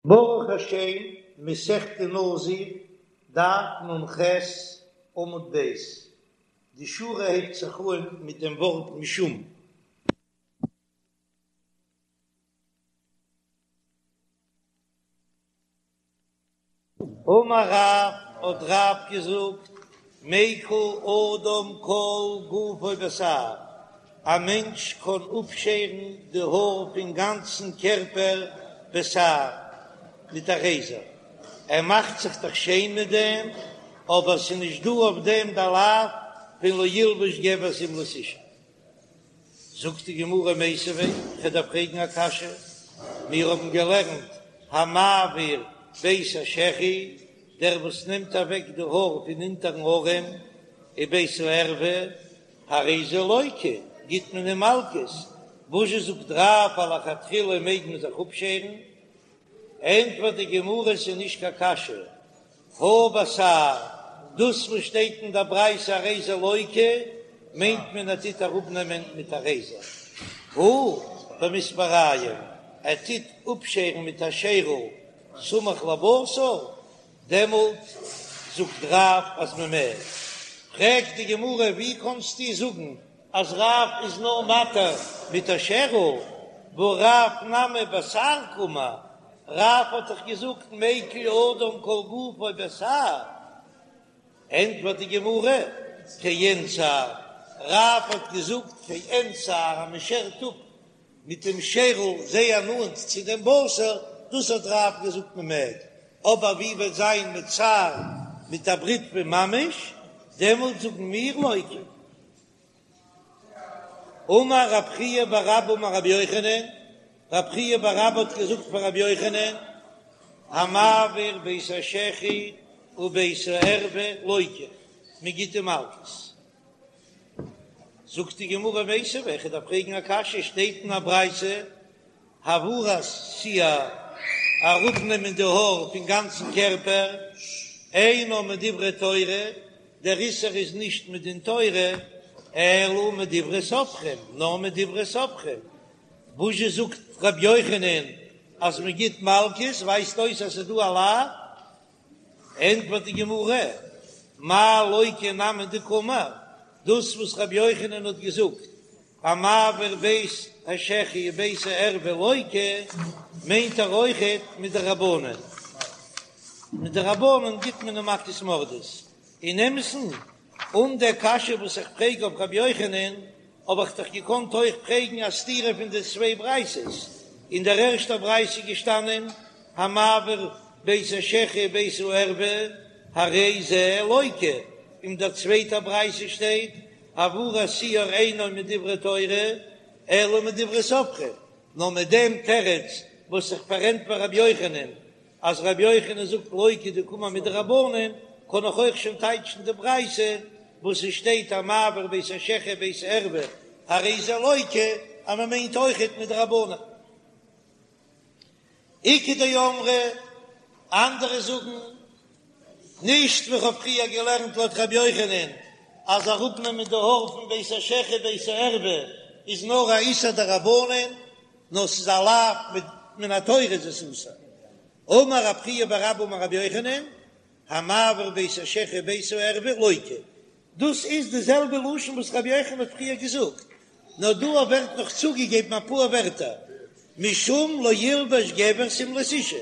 ברוך השם, מסכת נזיר, דף נ"ח, עמוד ב', די שורה הייבט זיך אן מיט דעם ווארט משום. אמר רב, האט רב געזאגט, מיקל אדם כל גופו בתער, א מענטש קען אפשערן די האר פון גאנצן קערפער בתער מיט א רעזער, ער מאכט זיך דאך שיין מיט דעם, אבער ס'איז נישט דא אויף דעם די לאו פון לא ילבש גבר שמלת אשה. זאגט די גמרא מיתיבי, כ'דארף פרעגן א קשיא, מיר האבן געלערנט המעביר בית השחי, דער וואס נעמט אוועק די האר פון אונטערן ארעם, ובית הערווה, הרי זה לוקה, גיט מען אים מלקות, וואזשע זאגט רב אז לכתחילה מעג מען זיך אפשערן? ענטפערט די גמרא ס'איז נישט קיין קשיא, הא בתער, דאס וואס שטייט אין דער ברייתא הרי זה לוקה, מיינט מען ער טוט אראפנעמען מיט א רעזער, הא במספריים, ער טוט אפשערן מיט א שערל סמוך לבשר, דעמאלט זאגט רב אז מען מעג. פרעגט די גמרא ווי קענסטו זאגן אז רב איז נאר מתיר מיט א שערל, והא רב נמי בתער קאמר, רב האט דאך געזאגט מיקל אדם כל גופו בתער, ענטפערט די גמרא, כעין תער, רב האט געזאגט כעין תער אז מען שערט אפ מיט דעם שערל זייער נאנט צו דעם בשר, דאס האט רב געזאגט מען מעג, אבער ווי וועט זיין מיט שער מיט א בריטווע ממש, דעמאלט זאגן מיר לוקה. אמר רב חייא בר אבא אמר רבי יוחנן, רב חייא בר אבא האט געזאגט פאר רבי יוחנן, המעביר בית השחי ובית הערווה לוקה, מען גיט אים מלקות. זאגט די גמרא מיתיבי, איך דארף פרעגן א קשיא, שטייט אין א ברייתא העברת שער, אראפנעמען די האר פון גאנצן קערפער, אינו מדברי תורה, דער איסור איז נישט מדין תורה, אלא מדברי סופרים, נאר מדברי סופרים. וואזשע זאגט ר' יוחנן אז מען גיט מלקות, ווייזט אויס אז ס'איז דא א לאו. ענטפערט די גמרא, מאי לוקה נמי דקאמר, דאס וואס ר' יוחנן האט געזאגט המעביר בית השחי ובית הערווה לוקה, מיינט ער אויכעט מדרבנן, מדרבנן גיט מען אים מכות מרדות, אין אמת'ן, אן דער קשיא וואס איך פרעג אויף רבי יוחנן, האב איך דאך געקאנט אויך פרעגן א סתירה פון די צוויי ברייתות, אין דער ערשטער ברייתא איז געשטאנען המעביר בית השחי ובית הערווה הרי זה לוקה, אין דער צווייטער ברייתא שטייט העברת שער אינו מדברי תורה אלא מדברי סופרים, נאר מיט דעם תירוץ וואס איך פארענטפער רבי יוחנן אז רבי יוחנן זאגט לוקה דקאמר מדרבנן, קען איך אויך שוין טייטשן די ברייתא וואס עס שטייט המעביר בית השחי ובית הערווה הרי זה לוקה אז מען מיינט אויכעט מדרבנן. איכא דאמרי, אנדערע זאגן, נישט ווי כ'האב פריער געלערנט לויט רבי יוחנן אז אראפנעמען די האר פון בית השחי בית הערווה איז נאר א איסור דרבנן, נאר ס'איז א לאו מן התורה איז עס אסור. אמר רב חייא בר אבא אמר רבי יוחנן, המעביר בית השחי ובית הערווה לוקה. דאס איז די זעלבע לשון וואס רבי יוחנן האט פריער געזאגט, נאר דא ווערט נאך צוגעגעבן אפאר ווערטער, משום לא ילבש גבר שמלת אשה.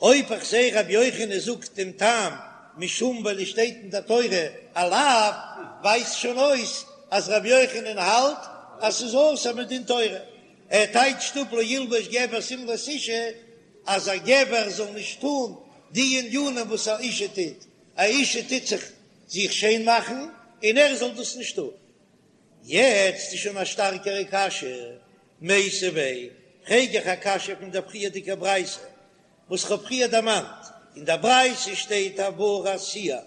אויב איך זעה רבי יוחנן זאגט דעם טעם משום ווייל עס שטייט אין די תורה א לאו, ווייזט שוין אויס אז רבי יוחנן האלט אז ס'איז אסור מדין תורה. ער טייטשט אפ לא ילבש גבר שמלת אשה אז א גבר זאל נישט טון די ענינים וואס א אשה טוט, א אשה טוט זיך זיך שיין מאכן און ער זאל דאס נישט טון. יעצט איז שוין א שטארקערע קשיא, מיתיבי, פרעג איך א קשיא פון דער פריערדיגער ברייתא וואס כ'האב פריער דערמאנט, אין דער ברייתא שטייט העברת שער,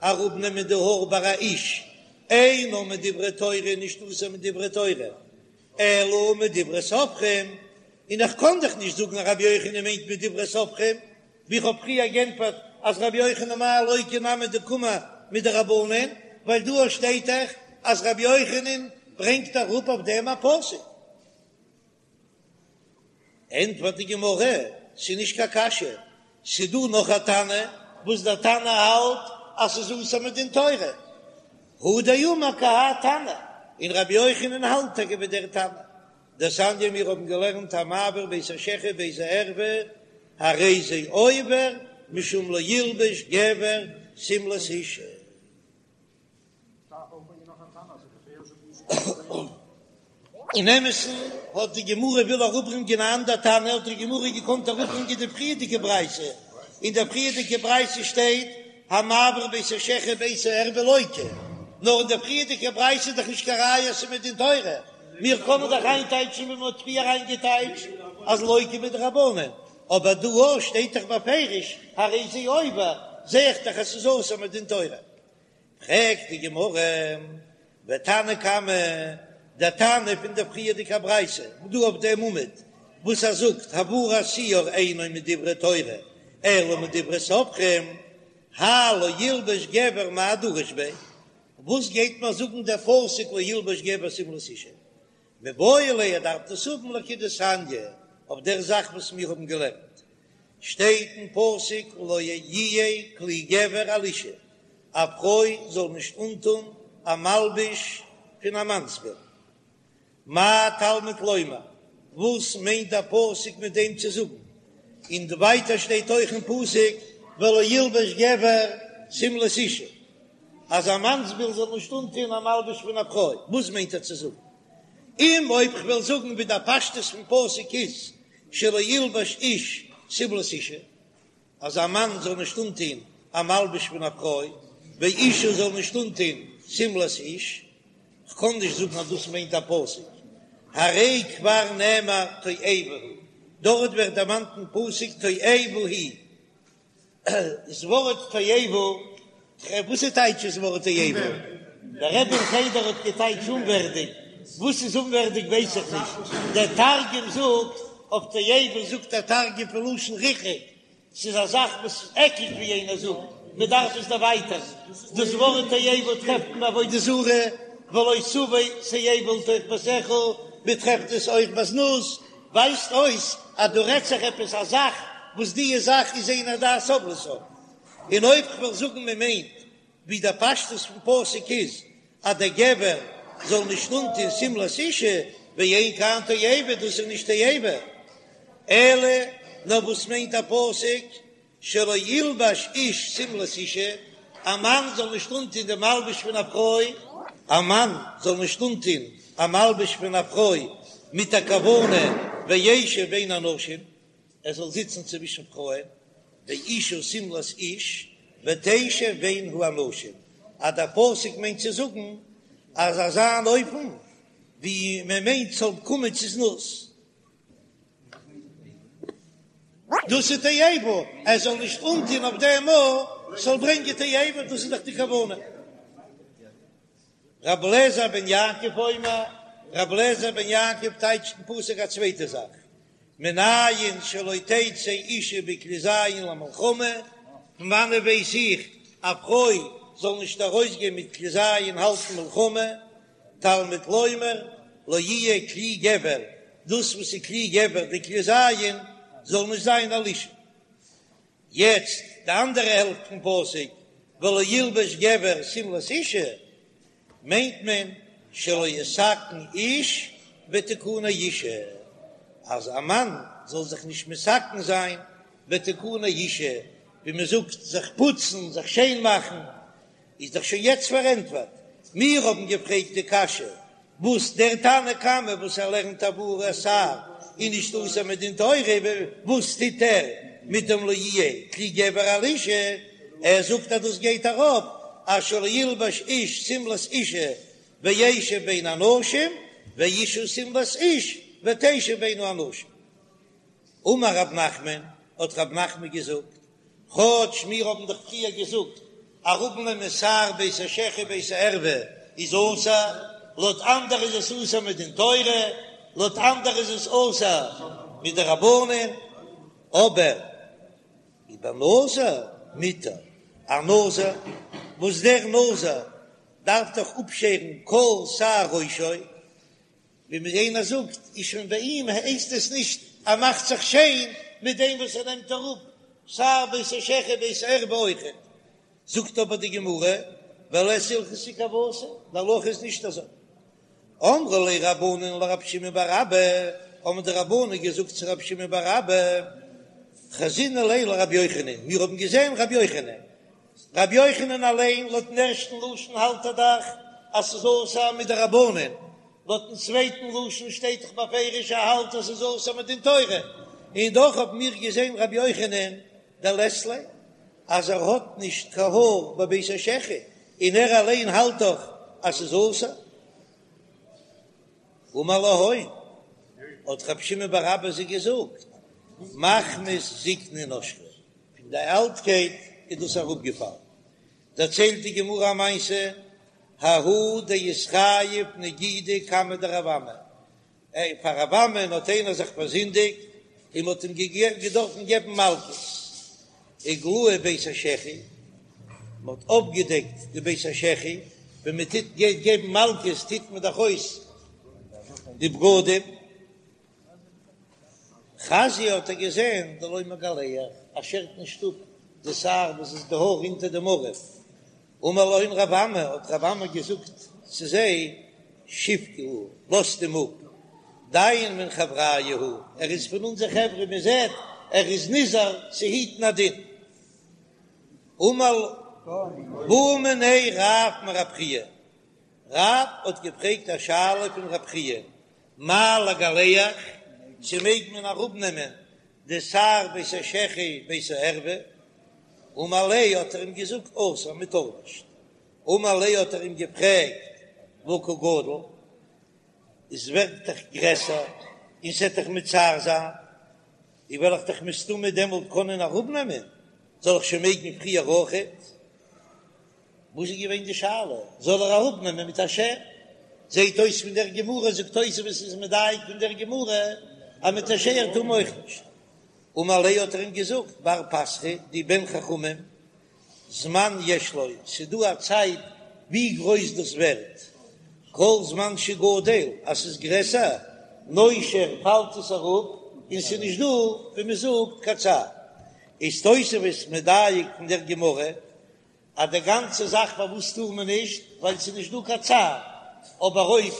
אראפנעמען די האר ביי א איש, אינו מדברי תורה, נישט אסור מדברי תורה, אלא מדברי סופרים, און איך קען דאך נישט זאגן אז רבי יוחנן מיינט מדברי סופרים, ווי איך האב פריער גענטפערט אז רבי יוחנן מאי לוקה נמי דקאמר מדרבנן, ווייל דא שטייט דאך אז רבי יוחנן ברענגט אראפ אויף דעם א פסוק. ענטפערט די גמרא. ס'איז נישט קיין קשיא, ס'איז דא נאך א תנא וואס דער תנא האלט אז ס'איז אסור מדין תורה, הוא דאמר כי האי תנא, און רבי יוחנן האלט טאקע ווי דער תנא. דתניא מיר האבן געלערנט המעביר בית השחי ובית הערווה הרי זה עובר משום לא ילבש גבר שמלת אשה. אין אמת'ן האט די גמרא וויל אראפברענגען א אנדער תנא האט די גמרא געקאנט אראפברענגען די פריערדיגע ברייתא, אין דער פריערדיגע ברייתא שטייט המעביר בית השחי ובית הערווה לוקה, נאר אין דער פריערדיגע ברייתא איז דאך נישט קיין ראיה אז ס'איז מדין תורה, מיר קענען דאך איינטייטשן ווי מ'האט פריער איינגעטייטשט אז לוקה מדרבנן, אבער דא אויך שטייט דאך בפירוש הרי זה עובר, זע איך דאך אז ס'איז אסור מדין תורה. פרעגט די גמרא, ותנא קמא, דער תנא פון דער פריערדיגער ברייתא, דא אויף דעם עמוד, וואס ער זאגט העברת שער אינו מדברי תורה אלא מדברי סופרים, האי לא ילבש גבר מאי דריש ביה, וואס גייט מיר זאגן דער פסוק לא ילבש גבר שמלת אשה? מיבעי ליה ער דארף דאס האבן לכדתניא, אויף דער זאך וואס מיר האבן געלערנט, שטייט אין פסוק לא יהיה כלי גבר על אשה, א פרוי זאל נישט אנטון א מלבוש פון א מאנסביל. מה תלמוד לומר, וואס מיינט דער פסוק מיט דעם צו זאגן? און ווייטער שטייט אויך אין פסוק ולא ילבש גבר שמלת אשה, אז א מאנסביל זאל נישט אנטון א מלבוש פון א פרוי, וואס מיינט ער צו זאגן? אם אויב כ'וועל זאגן ווי דער פשטות פון פסוק איז שלא ילבש איש שמלת אשה, אז א מאן זאל נישט אנטון א מלבוש פון א פרוי, ואשה זאל נישט אנטון שמלת איש, כ'קען נישט זאגן אז דאס מיינט א פסוק, הרי כבר נאמר תועבה הוא, דארט ווערט דערמאנט אין פסוק תועבה היא, דאס ווארט תועבה, וואס איז טייטש דאס ווארט תועבה? דער רבי אין חדר האט געטייטש אומווערדיג, וואס איז אומווערדיג ווייס איך נישט, דער תרגום זאגט אויף תועבה זאגט דער תרגום פון לשון ריחוק, ס'איז א זאך וואס עקלט ווי איינער זאגט, מען דארף עס דערווייטערן, דאס ווארט תועבה טרעפט מען ביי עבודה זרה, ולא תביא תועבה לתוך ביתך, מען טרעפט עס אויך ביי זנות, ווייזט אויס אז דא רעדט זיך עפעס א זאך וואס דיע זאך איז אין הדעת סובלתה, און אויב כ'וועל זאגן מען מיינט ווי דער פשטות פון פסוק איז אז דער גבר זאל נישט אנטון שמלת אשה, ואין כאן תועבה, דאס איז נישט תועבה, אלא נאר וואס מיינט א פסוק שלא ילבש איש שמלת אשה, א מאן זאל נישט אנטון די מלבוש פון א פרוי, א מאן זאל נישט אנטון א מלבוש פון א פרוי מיט א כוונה וישב בין הנשים, ער זאל זיצן צווישן פרויען, ואשה שמלת איש ותשב בין האנשים, אז דער פסוק מיינט צו זאגן אז אזא אן אופן ווי מען מיינט ס'זאל קומען צו זנות. דאס איז תועבה, ער זאל נישט אנטון אויף דעם ארט, ס'זאל ברענגען תועבה, דאס איז דאך די כוונה. רבי אליעזר בן יעקב אומר, רבי אליעזר בן יעקב טייטשט אין פסוק א צווייטע זאך, מנין שלא תצא אישה בכלי זין למלחמה, פון וואנעט ווייס איך א פרוי זאל נישט ארויסגיין מיט כלי זין האלטן מלחמה, תלמוד לומר לא יהיה כלי גבר, דאס וואס איז כלי גבר די כלי זין זאל נישט זיין על אשה. יעצט די אנדערע העלפט פון פסוק ולא ילבש גבר שמלת אשה, מיינט מען שלא יתקן איש בתיקוני אשה, אז א מאן זאל זיך נישט מתקן זיין בתיקוני אשה, ווי מען זאגט זיך פוצן, זיך שיין מאכן, איז דאך שוין יעצט פארענטפערט. מיר האבן געפרעגט די קשיא וואס דער תנא קמא וואס ער לערנט העברת שער איז נישט אסור מדין תורה, וואס טוט ער מיט דעם לא יהיה כלי גבר על אשה, ער זאגט אז דאס גייט אראפ אז שלא ילבש איש שמלת אשה וישב בין הנשים ואשה שמלת איש ותשב בין האנשים. אמר רב נחמן, האט רב נחמן געזאגט, כאטש מיר האבן דאך פריער געזאגט אראפנעמען שער בית השחי בית הערווה איז אסור, לויט אנדערע איז עס אסור מדין תורה, לויט אנדערע איז עס אסור מדרבנן, אבער ובנזיר מותר, א נזיר וואס דער נזיר דארף דאך אפשערן כל שער ראשו, ווי מיר איינער זאגט איז שוין ביי אים הייסט עס נישט ער מאכט זיך שיין. מיט דעם וואס ער נעמט אראפ שער בית השחי בית הערווה אויכעט. זאגט אבער די גמרא, ולית הלכתא כוותיה, די הלכה איז נישט אזוי. אמרו ליה רבנן לרב שמעון בר אבא, האבן די רבנן געזאגט צו רב שמעון בר אבא, חזינא ליה לרבי יוחנן, מיר האבן געזען רבי יוחנן, רבי יוחנן אליין לויטן ערשטן לשון האלט ער דאך אז ס'איז אסור מדרבנן, לויטן צווייטן לשון שטייט דאך בפירוש ער האלט אז ס'איז אסור מדין תורה, און דאך האבן מיר געזען רבי יוחנן דלית ליה אז ער האט נישט קיין האר בבית השחי, און ער אליין האלט דאך אז ס'איז אסור. אמר להון, האט רבי שמעון בר אבא זיי געזאגט, מחמת זקנה נשרו, פון די אלטקייט איז דאס אראפגעפאלן. דערציילט די גמרא א מעשה, ההוא דאיתחייב נגידא קמיה דרב אמי, פאר רב אמי'ן האט איינער זיך פארזינדיגט און מ'האט אים געדארפן געבן מלקות, איגלאי בית השחי, מ'האט אויפגעדעקט די בית השחי, ווען מ'טוט גייט געבן מלקות טוט מען דאך אויס די בגדים, חזייה האט ער געזען דלא מגלח, ער שערט נישט אפ די שער וואס איז די האר אונטער דעם ארעם, אמר להון רב אמי, האט רב אמי געזאגט צו זיי, שבקוהו, לאזט אים אפ, דיין מן חבריא הוא, ער איז פון אונזער חברה, מען זעט ער איז נזהר צו היטן א דין. אמר בעא מיניה רב מרב חייא, רב האט געפרעגט א שאלה פון רב חייא, מהו לגלח, צו מעג מען אראפנעמען די שער בית השחי בית הערווה, אמר ליה האט ער אים געזאגט אסור מען טאר נישט, אמר ליה האט ער אים געפרעגט והא קא גדיל, עס ווערט דאך גרעסער און ס'עט דאך מצער זיין, און וועל איך דאך מסתמא דעמאלט קענען אראפנעמען, זאל איך שוין מעגן פריער אויכעט? וואס איז געווען די שאלה? זאל ער אראפנעמען מיט א שער? זעהט אויס פון דער גמרא, זאגט תוספות איז מדייק פון דער גמרא אז מיט א שער טאר מען אויך נישט. אמר ליה האט ער אים געזאגט, בר פתחא דו בן חכמים, זמן יש לו, ס'איז דא א צייט ווי גרויס דאס ווערט, כל זמן שגדל, אז ס'איז גרעסער, נושר פאלט עס אראפ, און ס'איז נישט דא ווי מ'זאגט קיין צער. איז תוספות מדייק פון דער גמרא אז די גאנצע זאך פארוואס טאר מען נישט, ווייל ס'איז נישט דא קיין צער, אבער אויב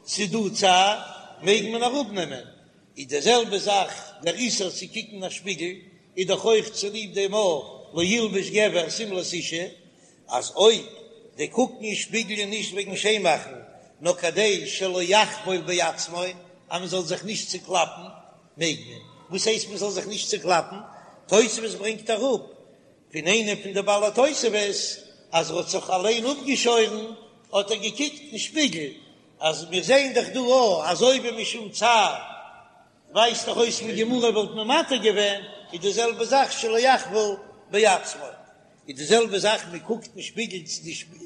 ס'איז דא צער מעג מען אראפנעמען, איז די זעלבע זאך דער איסור צו קוקן אין א שפיגל איז דאך אויך צוליב דעם לא ילבש גבר שמלת אישה, אז אויב די קוקן אין שפיגל איז נישט וועגן שיין מאכן נאר כדי שלא יחבול בעצמו אז מען זאל זיך נישט צוקלאפן מעג מען, וואס הייסט מען זאל זיך נישט צוקלאפן? תוספות ברענגט אראפ פון איינע פון די בעלי התוספות אז ער האט זיך אליין אפגעשוירן האט ער געקוקט אין שפיגל, אז מיר זעען דאך דא א אז אויב משום צער ווייזט דאך אויס פון גמרא וואלט מען מתיר געווען, איז די זעלבע זאך שלא יחבול בעצמו, איז די זעלבע זאך מען קוקט אין שפיגל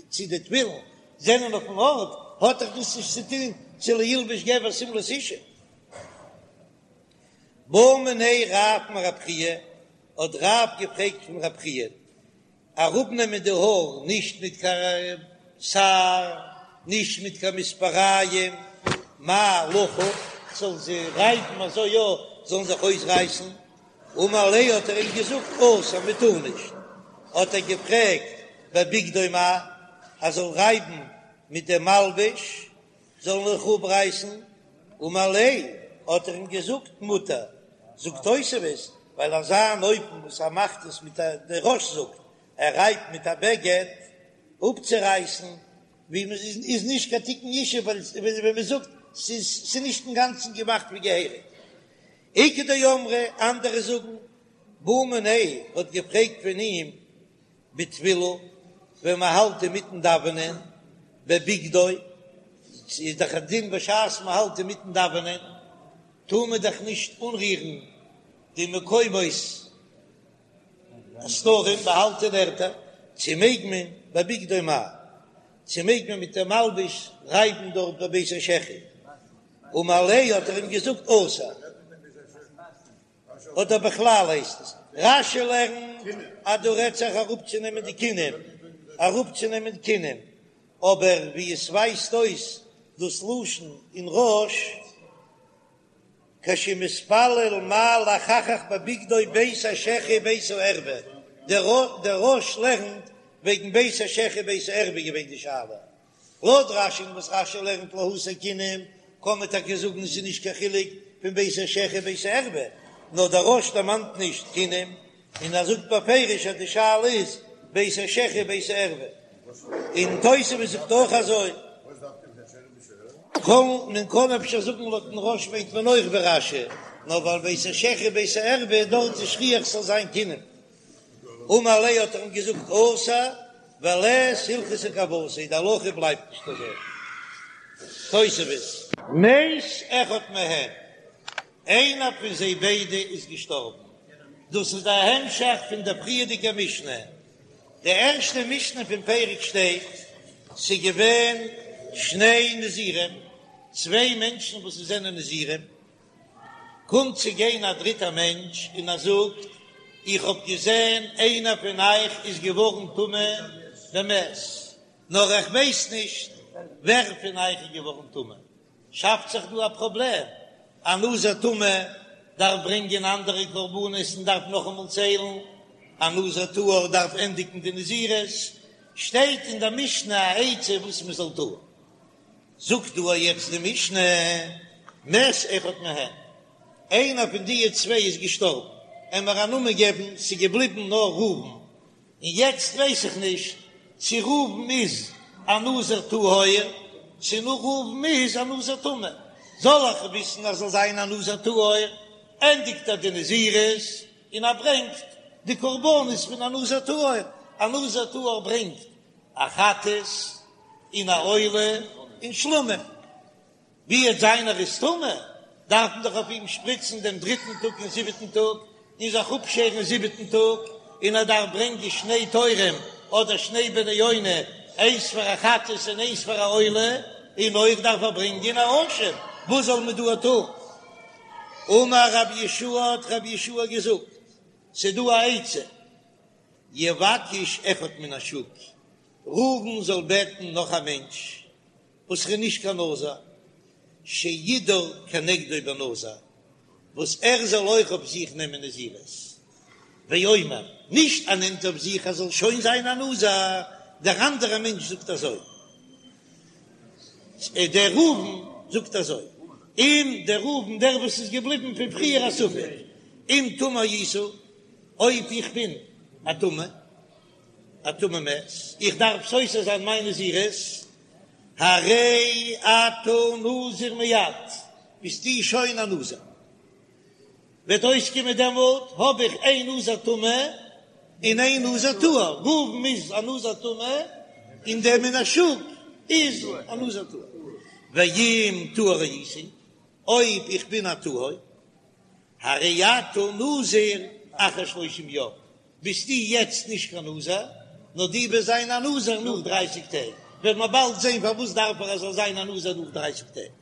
צו די תפילין זענען אויפן ארט, האט דאך דאס נישט צו טון צו לא ילבש גבר שמלת אישה. בעא מיניה רב מרב חייא, האט רב געפרעגט פון רב חייא, אראפנעמען די האר נישט מיט קיין שער, נישט מיט קיין מספריים, מהו לחוך, כ'זאל זיי רייבן אזוי יא זאלן זיך אויסרייסן, אמר ליה האט ער אים געזאגט אסור מען טאר נישט, האט ער געפרעגט בבגדו מהו, ער זאל רייבן מיט דעם מלבוש, זאלן זיך אפרייסן, אמר ליה, האט ער אים געזאגט מותר, זאגט תוספות, ווייל אזא אן אופן וואס ער מאכט עס מיט א, דער רא"ש זאגט, ער רייבט מיט א בגד אפצורייסן, ווי מען איז איז נישט קיין תיקון אשה, ווייל ווי מען זאגט ס'איז ס'איז נישט אינגאנצן געמאכט ווי געהעריג. איכא דאמרי, אנדערע זאגן, בעא מיניה האט געפרעגט פון אים בתפילה, ווען מען האלט אינמיטן דאווענען, בבגדו, איז דאך א דין בשעת מען האלט אינמיטן דאווענען, טאר מען דאך נישט אנרירן די מקומות הסתרים, באהאלטענע ערטער, צו מעג מען בבגדו מהו, צו מעג מען מיט דעם מלבוש רייבן דארט בבית השחי, אמר ליה האט ער אים געזאגט אסור. אדער בכלל הייסט עס רש"י לערנט אז דא רעדט זיך אראפצונעמען די כינים, אראפצונעמען כינים, אבער ווי עס ווייזט אויס דאס לשון אין רא"ש. כשמתפלל מהו לחכך בבגדו בית השחי בית הערווה, דער רא"ש לערנט וועגן בית השחי בית הערווה געווען די שאלה, לויט רש"י וואס רש"י לערנט להסיר כינים קען מען טאקע זאגן עס איז נישט קיין חילוק פון בית השחי בית הערווה, נאר דער רא"ש דערמאנט נישט כינים און ער זאגט בפירוש אז די שאלה איז בית השחי בית הערווה, און תוספות זאגט אויך אזוי. קען מען קען אפשר זאגן לויטן רא"ש מיינט מען אויך ווי רש"י, נאר ווייל בית השחי בית הערווה דארט איז שכיח ס'זאל זיין כינים. אמר ליה האט ער אים געזאגט אסור ולית הלכתא כוותיה, די הלכה בלייבט נישט אזוי. תוספות. מת אחד מהם, איינער פון זיי ביידע איז געשטארבן, דאס איז דער המשך פון דער פריערדיגער משנה, די ערשטע משנה פון פרק שטייט, ס'איז געווען שני נזירים, צוויי מענטשן וואס זענען נזירים, קומט צו גיין א דריטער מענטש און ער זאגט, איך האב געזען איינער פון אייך איז געווארן טמא במת, נאר איך ווייס נישט ווער פון אייך איז געווארן טמא. שאפט זיך דא א פראבלעם, א נזיר טמא דארף ברענגען אנדערע קרבנות און דארף נאכאמאל ציילן, א נזיר טהור דארף ענדיגן די נזירות, שטייט אין דער משנה א עצה וואס מען זאל טון. זאגט דא יעצט די משנה, מת אחד מהן, איינער פון די צוויי איז געשטארבן, עמער א נאמען געבן, ס'איז געבליבן נאר ראובן, און יעצט ווייס איך נישט צו ראובן איז א נזיר טהור, צו נאר ראובן איז א נזיר טמא, זאל איך וויסן אז זאל זיין א נזיר טהור, ענדיגט ער די נזירות און ער ברענגט די קרבנות פון א נזיר טהור, א נזיר טהור ברענגט א חטאת און א עולה און שלמים, ווי וועט זיין ער איז טמא, דארף מען דאך אויף אים שפריצן דעם דריטן טאג און זיבעטן טאג, און זיך אפשערן זיבעטן טאג, און ער דארף ברענגען שני תורים אדער שני בני יונה, איינס פאר א חטאת און איינס פאר א עולה, און אויך דארף ער ברענגען א אשם, וואס זאל מען דא טון? אמר רבי יהושע האט רבי יהושע געזאגט, ס'דא א עצה, יבקש אחד מן השוק, ראובן זאל בעטן נאך א מענטש וואס איז נישט קיין נזיר, שידור כנגדו בנזיר, וואס ער זאל אויך אויף זיך נעמען נזירות, ואומר, נישט ער נעמט אויף זיך ער זאל שוין זיין א נזיר, דער אנדערע מענטש זאגט אזוי, דער ראובן זאגט אזוי, אם דער ראובן דער וואס איז געבליבן פון פריער א ספק, אם טמא היית, אויב איך בין א טמא, א טמא מת, איך דארף סותר זיין מיין נזירות, הרי אתה נזיר מיד, ביסטו שוין א נזיר. וועט אויסקומען דעמאלט האב איך איין נזיר טמא און איין נזיר טהור, ראובן איז א נזיר טמא און דער מן השוק איז א נזיר טהור. ואם טהור הייתי, אויב איך בין א טהור, הרי אתה נזיר אחר שלושים יום, ביסטו יעצט נישט קיין נזיר, נאר דו וועסט זיין א נזיר נאך דרייסיג טעג, וועט מען באלד זען פארוואס דארף ער ער זאל זיין א נזיר נאך דרייסיג טעג.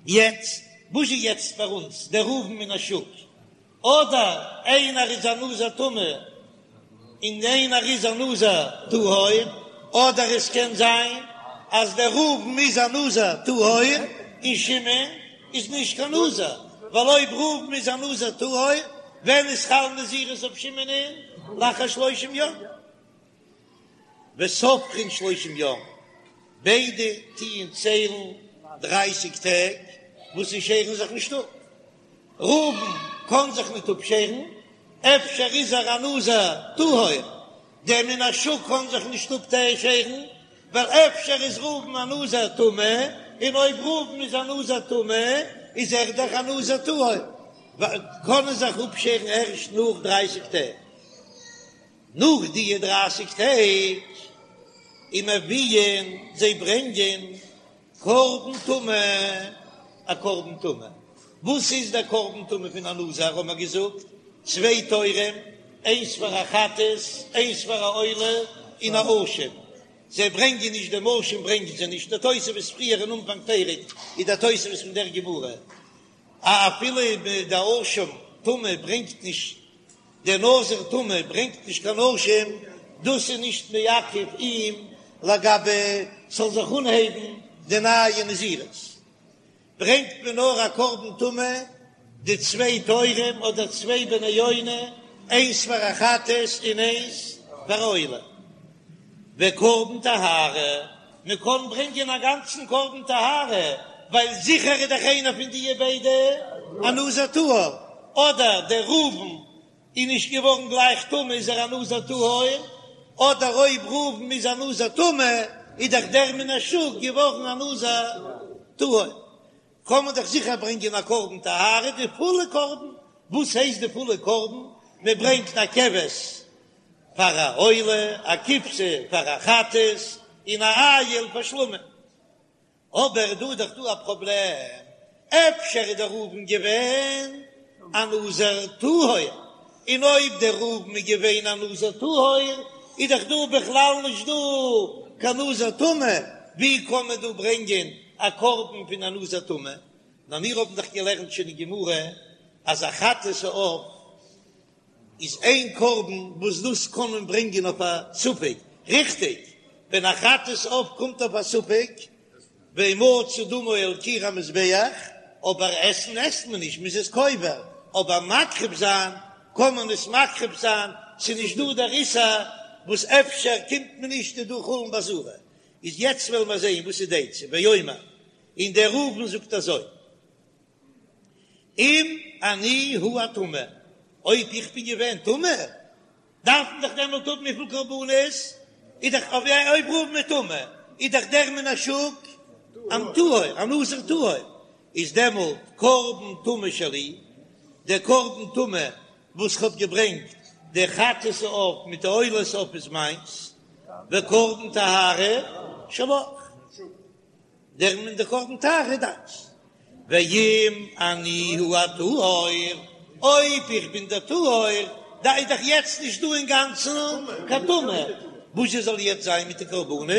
יעצט, וואס איז יעצט פאר אונז דער ראובן מן השוק? אדער איינער איז א נזיר טמא און איינער איז א נזיר טהור, אדער עס קען זיין אז דער ראובן איז א נזיר טהור און שמעון איז נישט קיין נזיר, ווייל אויב ראובן איז א נזיר טהור, ווען איז חל נזירות אויף שמעונ'ען? לאחר שלושים יום. וסופרין שלושים יום, ביידע טוען ציילן דרייסיג טעג וואס זיי שערן זיך נישט אפ. ראובן קען זיך ניט אפשערן, אפשר איז ער א נזיר טהור, דער מן השוק קען זיך נישט אפשערן, ווייל אפשר איז ראובן א נזיר טמא, און אויב ראובן איז א נזיר טמא איז ער דאך א נזיר טהור, קענען זיך אפשערן ערשט נאך דרייסיג טעג. נאך די דרייסיג טעג ומביאין זיי ברענגען קרבן טומאה, א קרבן טומאה, וואס איז דער קרבן טומאה פון א נזיר האבן מיר געזאגט, צוויי תורים, איינס פאר א חטאת, איינס פאר א עולה, און א אשם, זיי ברענגען נישט דעם אשם ברענגען זיי נישט, דער תוספות פריער אין אנפאנג פרק איז דער תוספות פון דער גמרא, אפילו דער אשם טומאה ברענגט נישט דער נזיר טמא ברענגט נישט קיין אשם, דאס איז נישט מעכב אים לגבי ס'זאל זיך אנהייבן די נייע נזירות. ברענגט מען נאר א קרבן טומאה, די צוויי תורים אדער צוויי בני יונה, איינס פאר א חטאת און איינס פאר א עולה. וקרבן טהרה, מען קען ברענגען א גאנצן קרבן טהרה, ווייל זיכער איז דאך איינער פון די ביידע א נזיר טהור, אדער דער ראובן איז נישט געווארן גלייך טמא איז ער א נזיר טהור, אדער אויב ראובן איז א נזיר טמא איז דאך דער מן השוק געווארן א נזיר טהור, קען מען דאך זיכער ברענגען א קרבן טהרה, די פולע קרבן, וואס הייסט די פולע קרבן? מען ברענגט א כבש פאר א עולה, א כבשה פאר א חטאת, און א איל פאר שלמים. אבער דא איז דאך דא א פראבלעם, אפשר איז דער ראובן געווען א נזיר טהור, און אויב דער ראובן איז געווען א נזיר טהור, איז דאך דא בכלל נישט דא קיין נזיר טמא, ווי קען מען דא ברענגען א קרבן פון א נזיר טמא? נאר מיר האבן דאך געלערנט שוין אין גמרא אז א חטאת העוף איז איין קרבן וואס דאס קען מען ברענגען אויף א ספק, ריכטיג, ווען א חטאת עוף קומט אויף א ספק, והומצא דמו על קיר המזבח, אבער עסן עסט מען נישט, מ'איז עס קובר, אבער מקריב זיין קען מען עס מקריב זיין, ס'איז נישט דא דער איסור וואס אפשר קומט מען נישט איז דא חולין בעזרה, איז יעצט וועלן מיר זעהן וואס איז די עצה, ואומר, און דער ראובן זאגט אזוי. אם אני הוא הטמא, אויב איך בין געווען טמא, דארף מען דאך דעמאלט האבן וויפיל קרבנות? איז דאך אויב ראובן איז טמא, איז דאך דער מן השוק א טהור, א נזיר טהור, איז דעמאלט קרבן טומאה שלי, דער קרבן טומאה וואס כ'האב געברענגט, דער חטאת העוף מיט די עולת העוף איז מיינס, וקרבן טהרה שלך. דער און דער קרבן טהרה איז דיינס. ואם אני הוא הטהור, אויב איך בין דער טהור, דא איז דאך יעצט נישט דא אינגאנצן קיין טומאה, וואס זשע זאל יעצט זיין מיט די קרבנות?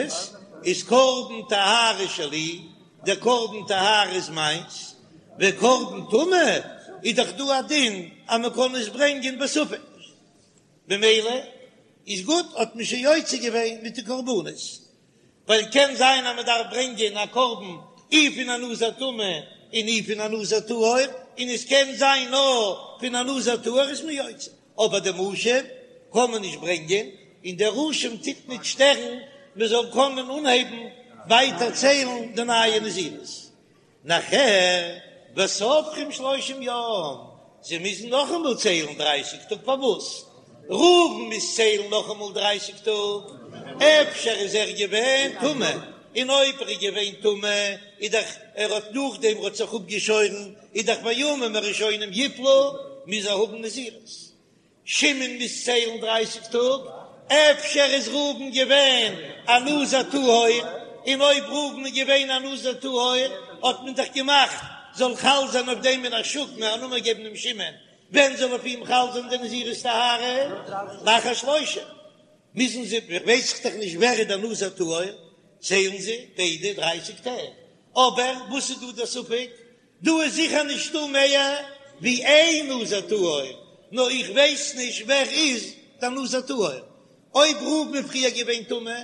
איז קרבן טהרה שלי, דער קרבן טהרה איז מיינס, וקרבן טומאה איז דאך דא א דין אז מען קען עס ברענגען בספק, במילא איז גוט, האט מען שוין יוצא געווען מיט די קרבנות. ווייל קען זיין אז מען דארף ברענגען א קרבן אי פון א נזיר טמא און אי פון א נזיר טהור, און עס קען זיין נאר פון א נזיר טהור איז מען יוצא, אבער דעם אשם קען מען נישט ברענגען, און דער אשם טוט נישט שטערן מען זאל קענען אנהייבן ווייטער ציילן די נייע נזירות. נאכער וסופרים שלושים יום, זיי מוזן נאכאמאל ציילן דרייסיג טאג, פארוואס? ראובן מוז ציילן נאכאמאל דרייסיג טאג, אפשר איז ער געווען טמא, און אויב ער איז געווען טמא איז דאך ער האט נאכדעם ער האט זיך אפגעשוירן איז דאך והימים הראשונים יפלו, מוז ער האבן נזירות. שמעון מוז ציילן דרייסיג טאג, אפשר איז ראובן געווען א נזיר טהור, און אויב ראובן איז געווען א נזיר טהור האט מען דאך געמאכט זאל חל זיין אויף דעם מן השוק מען א נאמען געבן אים שמעון, ווען זאל אויף אים חל זיין די נזירות טהרה? לאחר שלושים מוזן זיי, ווייס איך דאך נישט ווער איז דער נזיר טהור, ציילן זיי ביידע דרייסיג טעג, אבער וואס איז דא דער ספק? דא איז זיכער נישטא מער ווי איין נזיר טהור, נאר איך ווייס נישט ווער איז דער נזיר טהור. אויב ראובן איז פריער געווען טמא,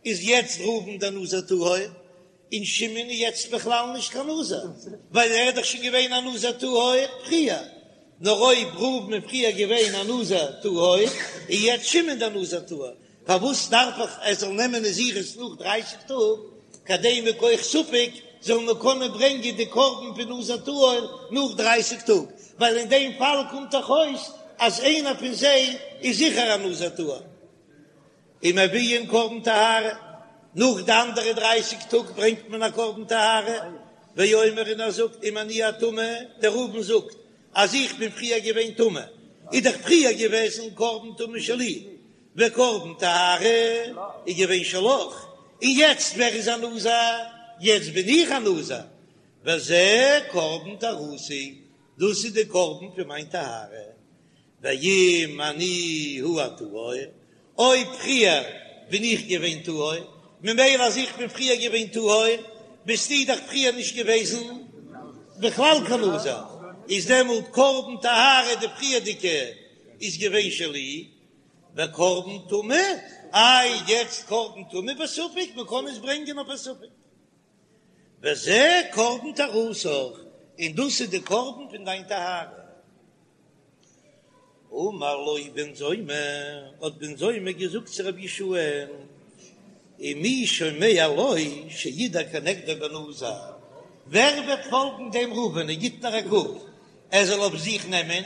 איז יעצט ראובן דער נזיר טהור, און שמעון איז יעצט בכלל נישט קיין נזיר, ווייל ער איז דאך שוין געווען א נזיר טהור פריער. נאר אויב ראובן איז פריער געווען א נזיר טהור, איז יעצט שמעון דער נזיר טהור. פארוואס דארף איך ער זאל נעמען נזירות נאך דרייסיג טאג, כדי מכח ספק זאל מען קענען ברענגען די קרבן פון נזיר טהור נאך דרייסיג טאג, ווייל אין דעם פאל קומט דאך אויס אז איינער פון זיי איז זיכער א נזיר טהור. ומביאין קרבן טהרה, נאך די אנדערע דרייסיג טאג ברענגט מען א קרבן טהרה, ואומר און ער זאגט אם אני הטמא, דער ראובן זאגט אז איך בין פריער געווען טמא, איז דאך פריער געוועזן קרבן טומאה שלי, וקרבן טהרה איז געווען שלך, און יעצט ווער איז א נזיר? יעצט בין איך א נזיר, וזה קרבן טהרתי, דאס איז די קרבן פון מיין טהרה, ואם אני הוא הטהור, אויב פריער בין איך געווען טהור, ממילא אז איך בין פריער געווען טהור, ביסטו דאך פריער נישט געוועזן בכלל קיין נזיר, איז דעמאלט קרבן טהרה די פריערדיגע איז געווען שלי, וקרבן טומאה, איי יעצט קרבן טומאה בספק, מען קען עס ברענגען אויף א ספק. וזה קרבן טהרתך, און דאס איז די קרבן פון דיין טהרה. אמר לו בן זומא, האט בן זומא געזאגט צו רבי יהושע, ומי שומע לו שידור כנגדו בנזיר, ווער וועט פאלגן דעם ראובן, ער גיט נאר א קוק, ער זאל אויף זיך נעמען,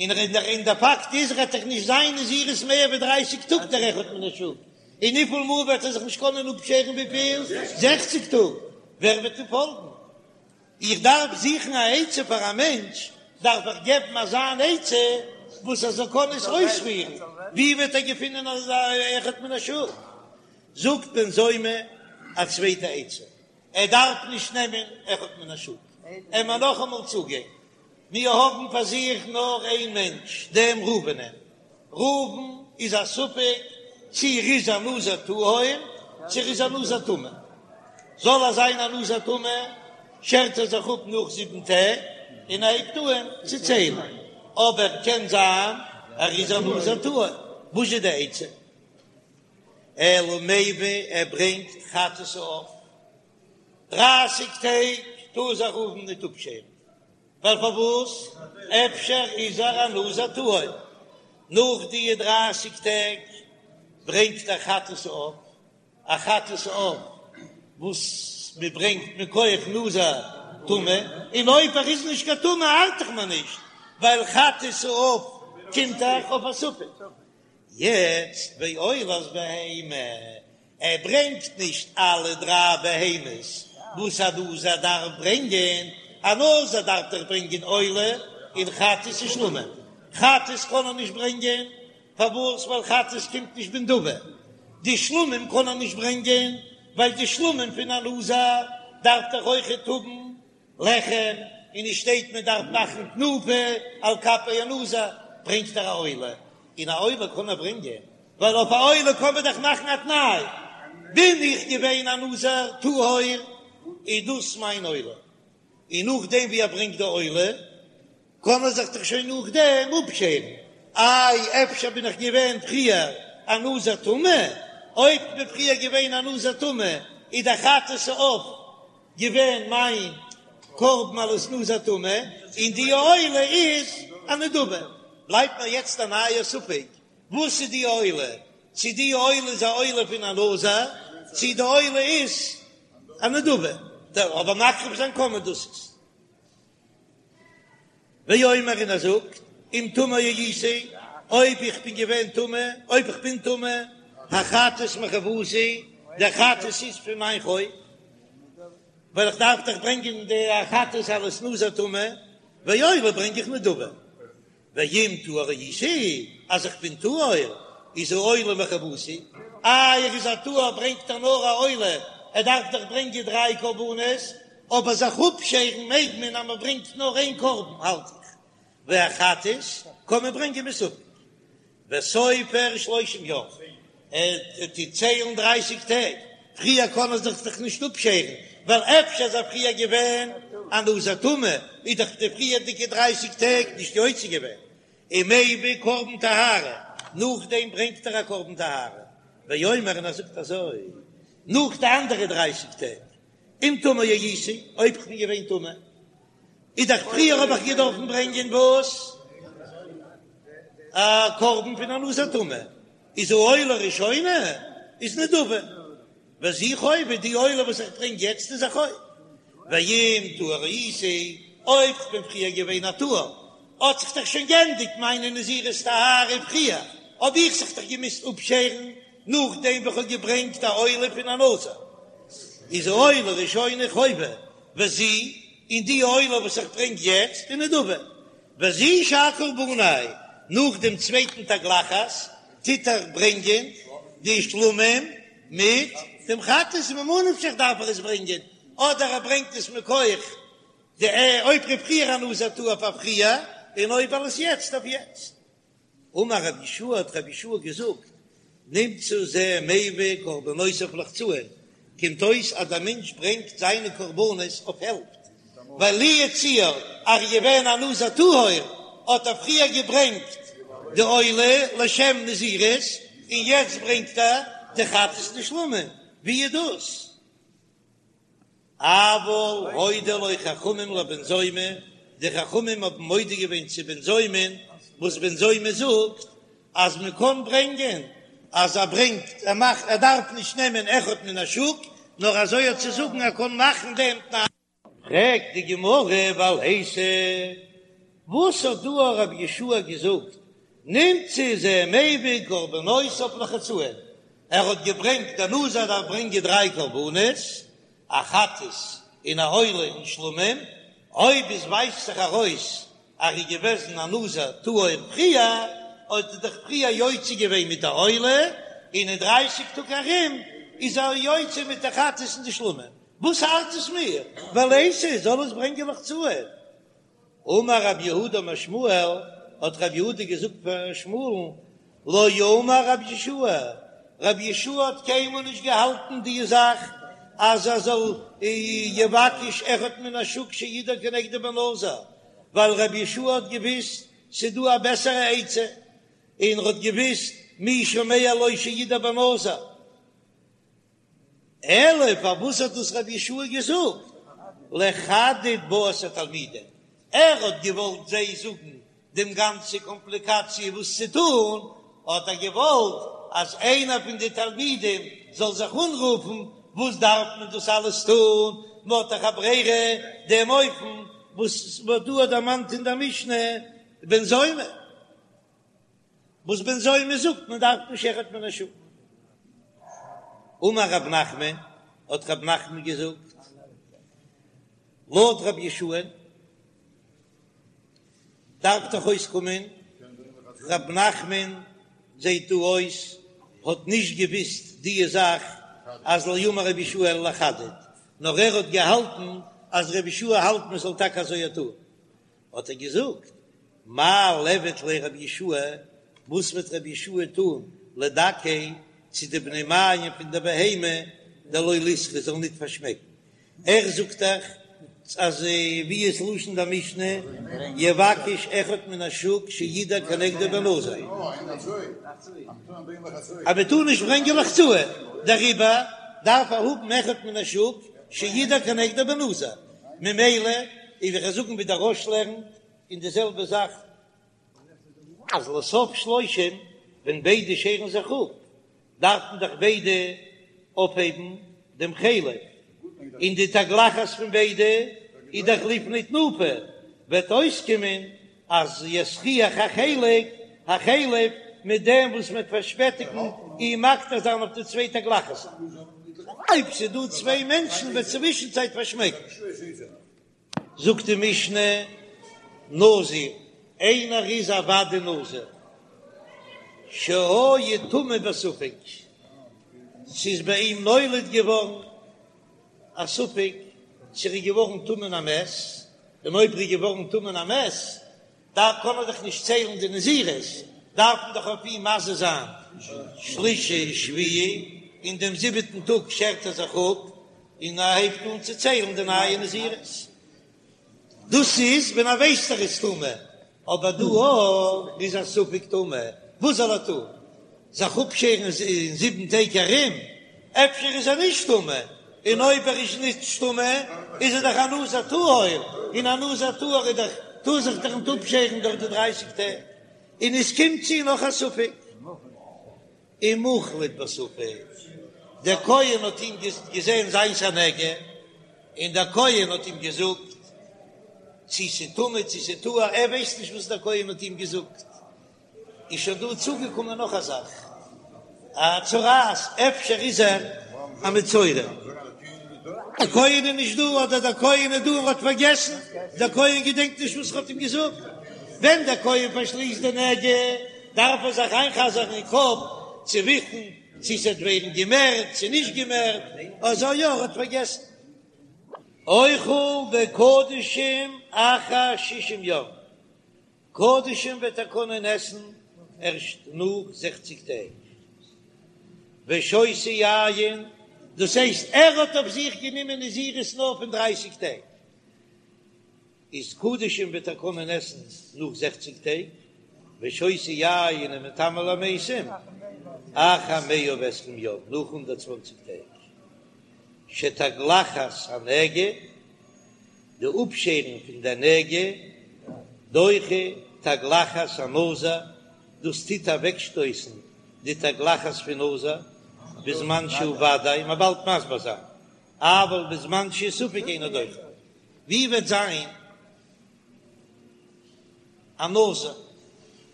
און און דער פאקט איז ער וועט דאך נישט זיין נזירות מער ווי דרייסיג טאג דער אחד מן השוק, און וויפיל מאל וועט ער זיך נישט קענען אפשערן וויפיל? זעכציג טאג, ווער וועט אים פאלגן? איך דארף זוכן א עצה פאר א מענטש, דארף איך געבן אזא אן עצה וואס ער זאל קענען עס אויספירן, ווי וועט ער געפינען אזא אחד מן השוק? זאגט בן זומא א צווייטע עצה, ער דארף נישט נעמען אחד מן השוק, עמיר נאכאמאל צוגיין, מיר האבן פאר זיך נאר איין מענטש, דעם ראובנ'ען, ראובן איז א ספק צי ער איז א נזיר טהור צי ער איז א נזיר טמא. זאל ער זיין א נזיר טמא, שערט ער זיך אפ נאך זיבן טעג און ער הייבט אהן צו ציילן. אבער קען זיין ער איז א נזיר טהור. וואס איז די עצה? אלא מביא ער ברענגט חטאת העוף. דרייסיג טעג טאר זיך ראובן ניט אפשערן. ווייל פארוואס? אפשר איז ער א נזיר טהור. נאך די דרייסיג טעג ברענגט ער חטאת העוף, א חטאת העוף וואס מען ברענגט מכח נזיר טמא, און אויב ער איז נישט קיין טמא ארט דאך מיר נישט, ווייל חטאת העוף קומט דאך אויף א ספק. יעצט ועולת בהמה, ער ברענגט נישט אלע דריי בהמות וואס א נזיר דארף ברענגען, א נזיר דארף דאך ברענגען עולה און חטאת און שלמים, חטאת קען ער נישט ברענגען, פארוואס? ווייל חטאת קומט נישט בנדבה, די שלמים קען ער נישט ברענגען, ווייל די שלמים פון א נזיר דארף דאך אויכעט האבן לחם, און עס שטייט מען דארף מאכן תנופה על כפי הנזיר, ברענגט ער א עולה, און א עולה קען ער ברענגען, ווייל אויף א עולה קען מען דאך מאכן א תנאי, בין איך געווען א נזיר טהור, איז דאס מיין עולה, און נאכדעם ווי ער ברענגט די עולה, קען ער זיך דאך שוין נאכדעם אפשערן, איי אפשר בין איך געווען פריער א נזיר טמא, אויב כ'בין פריער געווען א נזיר טמא, איז דער חטאת העוף געווען מיין קרבן אלס נזיר טמא, און די עולה איז א נדבה. בלייבט מיר יעצט א נייער ספק, וואס איז די עולה? צו די עולה איז א עולה פון א נזיר, צו די עולה איז א נדבה. אבער מקריב זיין קען מען דאס איז. ואומר און ער זאגט, אם טמא הייתי, אויב איך בין געווען טמא, אויב איך בין טמא, החטאת מחובתי, דער חטאת איז פון מיין חוב, ווייל איך דארף דאך ברענגען די חטאת אלס נזיר טמא, ועולה ברענג איך נדבה. ואם טהור הייתי, אז איך בין טהור, איז העולה מחובתי, איי ער איז א טהור ברענגט ער נאר א עולה, ער דארף דאך ברענגען דריי קרבנות, אבער זיך אפשערן מעג מען אז מען ברענגט נאר איין קרבן האלט איך, והחטאת קען מען ברענגען מספק, וסופר שלושים יום, ער טוט ציילן דרייסיג טעג, פריער קען ער זיך דאך נישט אפשערן, ווייל אפשר איז ער פריער געווען א נזיר טמא, איז דאך די פריערדיגע דרייסיג טעג נישט יוצא געווען, ומביא קרבן טהרה, נאכדעם ברענגט ער א קרבן טהרה, ואומר און ער זאגט אזוי, נאך די אנדערע דרייסיג טעג, אם טמא הייתי, אויב כ'בין געווען טמא, איז דאך פריער האב איך געדארפן ברענגען וואס? א קרבן פון א נזיר טמא, איז העולה ראשונה איז נדבה, וזו חובה, די עולה וואס איך ברענג יעצט איז א חוב, ואם טהור הייתי, אויב כ'בין פריער געווען א טהור, האט זיך דאך שוין גענדיגט מיינע נזירות טהרה פריער, האב איך זיך דאך געמוזט אפשערן נאכדעם וואס כ'האב געברענגט א עולה פון א נזיר, איז העולה ראשונה חובה, וזו, און די עולה וואס איך ברענג יעצט איז נדבה, וזו שאר קרבני, נאך דעם צווייטן תגלחת טוט ער ברענגען די שלמים מיט דעם חטאת, ממה נפשך דארף ער עס ברענגען, אדער ער ברענגט עס מכח די אויב ער איז פריער א נזיר טהור פאר פריער, און אויב אלעס יעצט אויף יעצט. אמר רבי יהושע האט רבי יהושע געזאגט, נמצא זה מביא קרבנותיו לחצאין, קומט אויס אז דער מענטש ברענגט זיינע קרבנות אויף העלפט, ווייל לו יצוייר אז ער איז געווען א נזיר טהור האט ער פריער געברענגט די עולה לשם נזירות און יעצט ברענגט ער די חטאת ושלמים, ווי איז דאס? אבל הודו לו חכמים לבן זומא, די חכמים האבן מודה געווען צו בן זומא'ן, וואס בן זומא זאגט אז מען קען ברענגען, אז ער ברענגט, ער מאכט, ער דארף נישט נעמען אחד מן השוק, נאר אזוי האט צו זאגן ער קען מאכן דעם תנאי. פרעגט די גמרא ולייתי, וואס האט דא רבי יהושע געזאגט, נמצא זה מביא קרבנותיו לחצאין, ער האט געברענגט דער נזיר דארף ברענגען דריי קרבנות, א חטאת און א עולה און שלמים, אויב עס ווייזט זיך ארויס אז ער איז געוועזן א נזיר טהור פריער, האט ער דאך פריער יוצא געווען מיט די עולה, און אין דרייסיג טאג ארום איז ער יוצא מיט די חטאת און די שלמים, וואס ארט עס מיר, ולייתי זאל עס ברענגען לחצאין. אמר רב יהודה אמר שמואל, האט רב יהודה געזאגט פאר שמואל'ן, לא אמר רבי יהושע, רבי יהושע האט קיינמאל נישט געהאלטן די זאך אז ער זאל יבקש אחד מן השוק שידור כנגדו בנזיר, ווייל רבי יהושע האט געוויסט ס'איז דא א בעסערע עצה, און ער האט געוויסט מי שומע לו שידור בנזיר. אלא פארוואס האט דאס רבי יהושע געזאגט לחדד בה את התלמידים, ער האט געוואלט זיי זאגן דעם גאנצע קאמפליקאציע וואס צו טון, האט ער געוואלט אז איינער פון די תלמידים זאל זיך אנרופן, וואס דארף מען דאס אלעס טון, מען האט דאך א ברירה, דעם אופן וואס מ'האט דא דערמאנט אין דער משנה בן זומא. וואס בן זומא זאגט מען דארף נישט אחד מן השוק. אמר רב נחמן, האט רב נחמן געזאגט, לויט רבי יהושע'ן דארף דאך אויסקומען, רב נחמן זעט דא אויס האט נישט געוויסט די זאך אז לא אמר רבי יהושע אלא לחדד, נאר ער האט געהאלטן אז רבי יהושע האלט מען זאל טאקע אזוי טון, האט ער געזאגט, מאי ליעבד ליה רבי יהושע, וואס וועט רבי יהושע טון לדכיה צו די בני מעיים פון די בהמה דלא ליסרו זאל ניט פארשמעקן, ער זאגט דאך אז ווי איז לשון די משנה יבקש אחד מן השוק שידור כנגדו בנזיר, אז מען טאר נישט ברענגען לחצאין, דעריבער דארף ער האבן אחד מן השוק שידור כנגדו בנזיר, ממילא וועל איך זאגן ווי דער רא"ש לערנט, און די זעלבע זאך אז לסוף שלושים ווען ביידע שערן זיך אפ דארפן דאך ביידע אויפהייבן דעם חלב, און די תגלחת פון ביידע איז דאך לפני תנופה, וועט אויסקומען אז יסריח החלק החלב מיט דעם וואס מ'וועט פארשפעטיגן אים מקטיר זיין אויף די צוויי תגלחת'ן. אויב ס'איז דא צוויי מענטשן וועט צווישן צייט פארשמעקן. זאגט די משנה, נזיר, איינער איז א ודאי נזיר, שהיה טמא בספק, ס'איז ביי אים נולד געווארן א ספק צו ער איז געווארן טמא אין א מת, און אויב ער איז געווארן טמא אין א מת, דארף קען מען דאך נישט ציילן די נזירות, דארף מען דאך אויף אים מזה זיין שלישי שביעי, און דעם זיבעטן טאג שערט ער זיך אפ און ער הייבט אן צו ציילן די נייע נזירות. דאס איז ווען ער ווייסט ער איז טמא, אבער דא אויב איז א ספק טמא, וואס זאל ער טון? זיך אפשערן אין זיבן טעג ארום? אפשר איז ער נישט טמא, און אויב ער איז נישט טמא איז ער דאך א נזיר טהור, און א נזיר טהור איז דאך טאר זיך דאך נישט אפשערן דורך די דרייסיג טעג, און עס קומט צו נאך א ספק. ומוחלט בספק, דער כהן האט אים געזען זיינס א נגע, און דער כהן האט אים געזאגט צי ס'טמא צי ס'טהור, ער ווייסט נישט וואס דער כהן האט אים געזאגט, איז שוין דא צוגעקומען נאך א זאך, א צרעת, אפשר איז ער א מצורע. דער כהן איז נישט דא, אדער דער כהן איז דא און האט פארגעסן, דער כהן געדענקט נישט וואס ער האט אים געזאגט, ווען דער כהן פארשליסט די נגע, דארף ער זיך איינ'חזר'ן אין קאפ צו וויסן צו ס'וועט ווערן געמערט צו נישט געמערט, אזוי יא ער האט פארגעסן. אוכל בקדשים אחר שישים יום, קדשים וועט ער קענען עסן ערשט נאך זעכציג טעג, ושותה יין, דאס הייסט ער האט אויף זיך גענומען נזירות נאר פון דרייסיג טעג, איז קדשים וועט ער קענען עסן נאך זעכציג טעג, ושותה יין ומטמא למתים אחר מאה ועשרים יום, נאך הונדערט צוואנציג טעג. שתגלחת הנגע, די אפשערן פון די נגע, דוחה תגלחת הנזיר, דאס טוט אוועקשטויסן די תגלחת פון נזיר, בזמן שהוא ודאי, מ'וועט באלד מסביר זיין, אבל בזמן שהוא ספק אינו דוחה. ווי וועט זיין א נזיר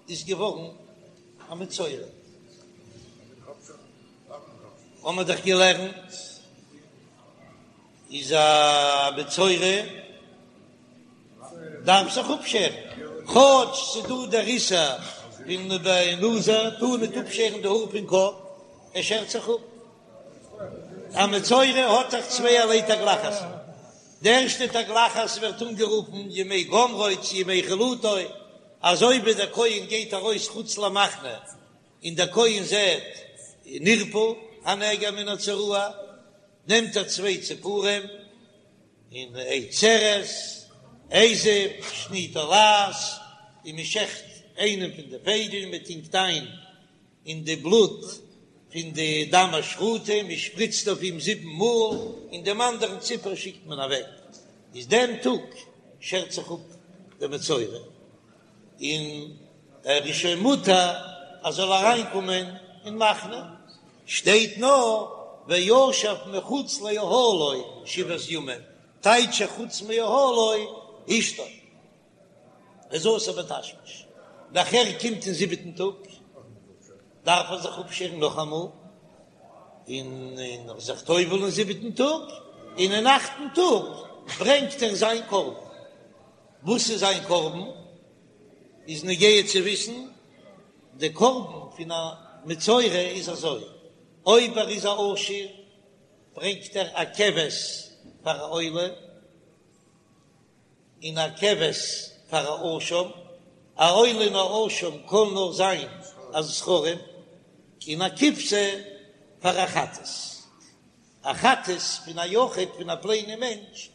איז געווארן א מצורע? האמער דאך געלערנט איז א מצורע דארף זיך אפשערן, כאטש ס'דא דער איסור פון נזיר טאר ניט אפשערן די האר פון קאפ, ער שערט זיך אפ. א מצורע האט דאך צווייערליי תגלחת, די ערשטע תגלחת ווערט אנגערופן ימי גמרו צו ימי חלוטו, אזוי ווי דער כהן גייט ארויס חוץ למחנה און דער כהן זעט נרפא הנגע מן הצרעה, נעמט ער צוויי ציפורים און עץ ארז, אזוב, שני תולעת, און מען שעכט איינעם פון די פייגל, מען טונקט איין אין די בלוט פון די דם השחוטה, מען שפריצט אויף אים זיבן מאל, און דעם אנדערן ציפור שיקט מען אוועק, איז דעם טאג שערט זיך אפ דער מצורע, און ער איז שוין מותר אז זאל אריינקומען אין מחנה, שטייט נאר וישב מחוץ לאהלו שבעת ימים, טייטש חוץ מאהלו אשתו. איז אסור בתשמיש, נאכער קומט אין זיבעטן טאג דארף ער זיך אפשערן נאכאמאל, און און זיך טובל'ן אין זיבעטן טאג, און אין אכטן טאג ברענגט ער זיין קרבן. וואס איז זיין קרבן? איז נוגע צו וויסן, די קרבן פון א מצורע איז אזוי, אויב ער איז א עשיר ברענגט ער א כבש פאר א עולה, און א כבש פאר א אשם, א עולה און א אשם קען נאר זיין א זכרים, און א כבשה פאר א חטאת, א חטאת פון א יחיד פון א פלעינע מענטש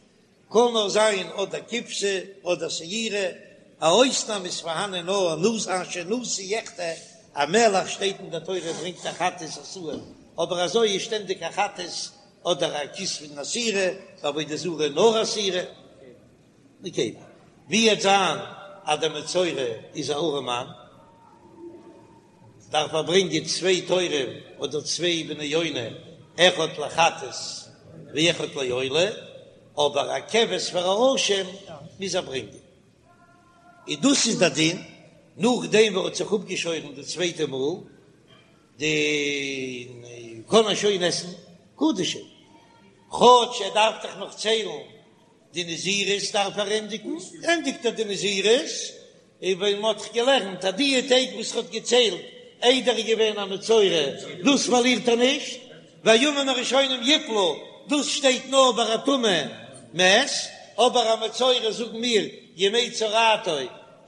קען נאר זיין אדער כבשה אדער שעירה, א אויסנאם איז פארהאנען נאר נשיא אשר נשיא יחטא, א מלך שטייט אין די תורה ברענגט א חטאת א שעיר, אבער אזוי איז שטענדיג א חטאת אדער א כשבן א שעירה, בעבודה זרה נאר א שעירה. נקבה. ווי וועט זיין אז דער מצורע איז א ארעמאן, דארף ער ברענגען צוויי תורים אדער צוויי בני יונה, אחד לחטאת ואחד לעולה, אבער א כבש פאר א אשם מוז ער ברענגען. און דאס איז דער דין, נאכדעם וואס ער האט זיך אפגעשוירן די צווייטע מאל, די קען ער שוין עסן קדשים, כאטש ער דארף דאך נאך ציילן די נזירות דארף ער ענדיגן, ענדיגט ער די נזירות, און ווען מען האט דאך געלערנט אז די טעג וואס ער האט געציילט איידער ער איז געווען א מצורע דאס פארלירט ער נישט, והימים הראשונים יפלו, דאס שטייט נאר ביי א טמא מת, אבער א מצורע זאגן מיר ימי צרעתו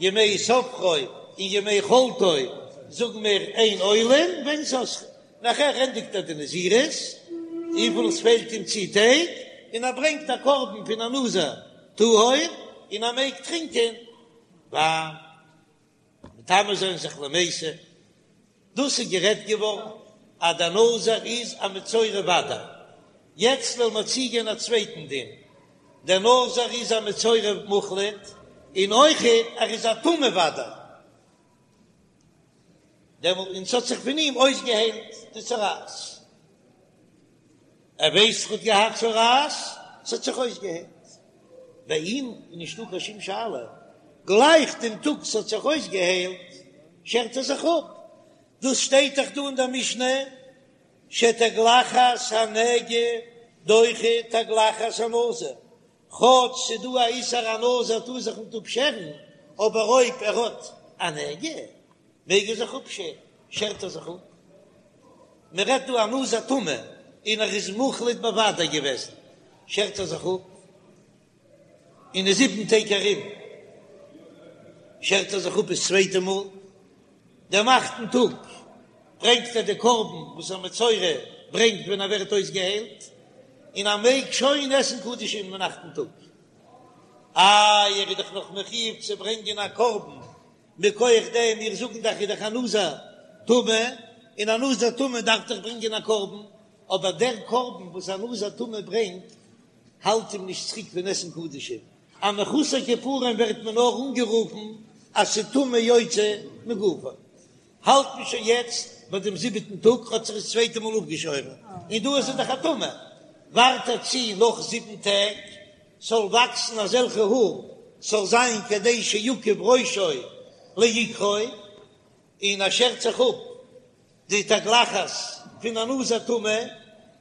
ימי ספרו און ימי חלוטו זאגן מיר אין עולין ואין סוסכין, נאכער ענדיגט ער די נזירות, וויפיל עס פעלט אים צו טעג, און ער ברענגט א קרבן פון א נזיר טהור, און ער מעג טרינקען וויין, מטמא זיין זיך למתים. דאס איז גערעדט געווארן אז דער נזיר איז א מצורע ודאי. יעצט וועלן מיר צוגיין א צווייטן דין, דער נזיר איז א מצורע מוחלט, און אויכעט ער איז א טמא ודאי. דעמאלט און ס'האט זיך פון אים אויסגעהיילט די צרעת. ער ווייסט ער האט געהאט צרעת, ס'האט זיך אויסגעהיילט. ביי אים איז נישטא קיין שום שאלה, גלייך דעם טאג ס'האט זיך אויסגעהיילט שערט ער זיך אפ. דאס שטייט דאך דא אין דער משנה, שתגלחת הנגע דוחה תגלחת הנזיר, כאטש ס'איז דא א איסור א נזיר טאר זיך ניט אפשערן, אבער אויב ער האט א נגע מעג ער זיך אפשערן, שערט ער זיך אפ. מען רעדט דא א נזיר טמא און ער איז מוחלט בוודאי געוועזן, שערט ער זיך אפ, אין די זיבן טעג ארום שערט ער זיך אפ דאס צווייטע מאל, דעם אכטן טאג ברענגט ער די קרבן וואס א מצורע ברענגט ווען ער ווערט אויסגעהיילט, און ער מעג שוין עסן קדשים אין אכטן טאג. איי ער איז דאך נאך מחיוב צו ברענגען א קרבן מכח דעם, מיר זאגן דאך איז דאך א נזיר טמא, און א נזיר טמא דארף דאך ברענגען א קרבן, אבער דער קרבן וואס א נזיר טמא ברענגט האלט אים נישט צוריק פון עסן קדשים, א מחוסר כיפורים ווערט מען נאר אנגערופן אז ס'טומאה יוצא מגופו. האלט מען שוין יעצט ביי דעם זיבעטן טאג, האט זיך עס צווייטע מאל אפגעשוירן, און דא איז ער דאך א טמא, ווארט ער צו נאך זיבן טעג ס'זאל וואקסן אזעלכע האר, ס'זאל זיין כדי שיקיף ראשו לעיקרו, און ער שערט זיך אפ די תגלחת פון א נזיר טמא,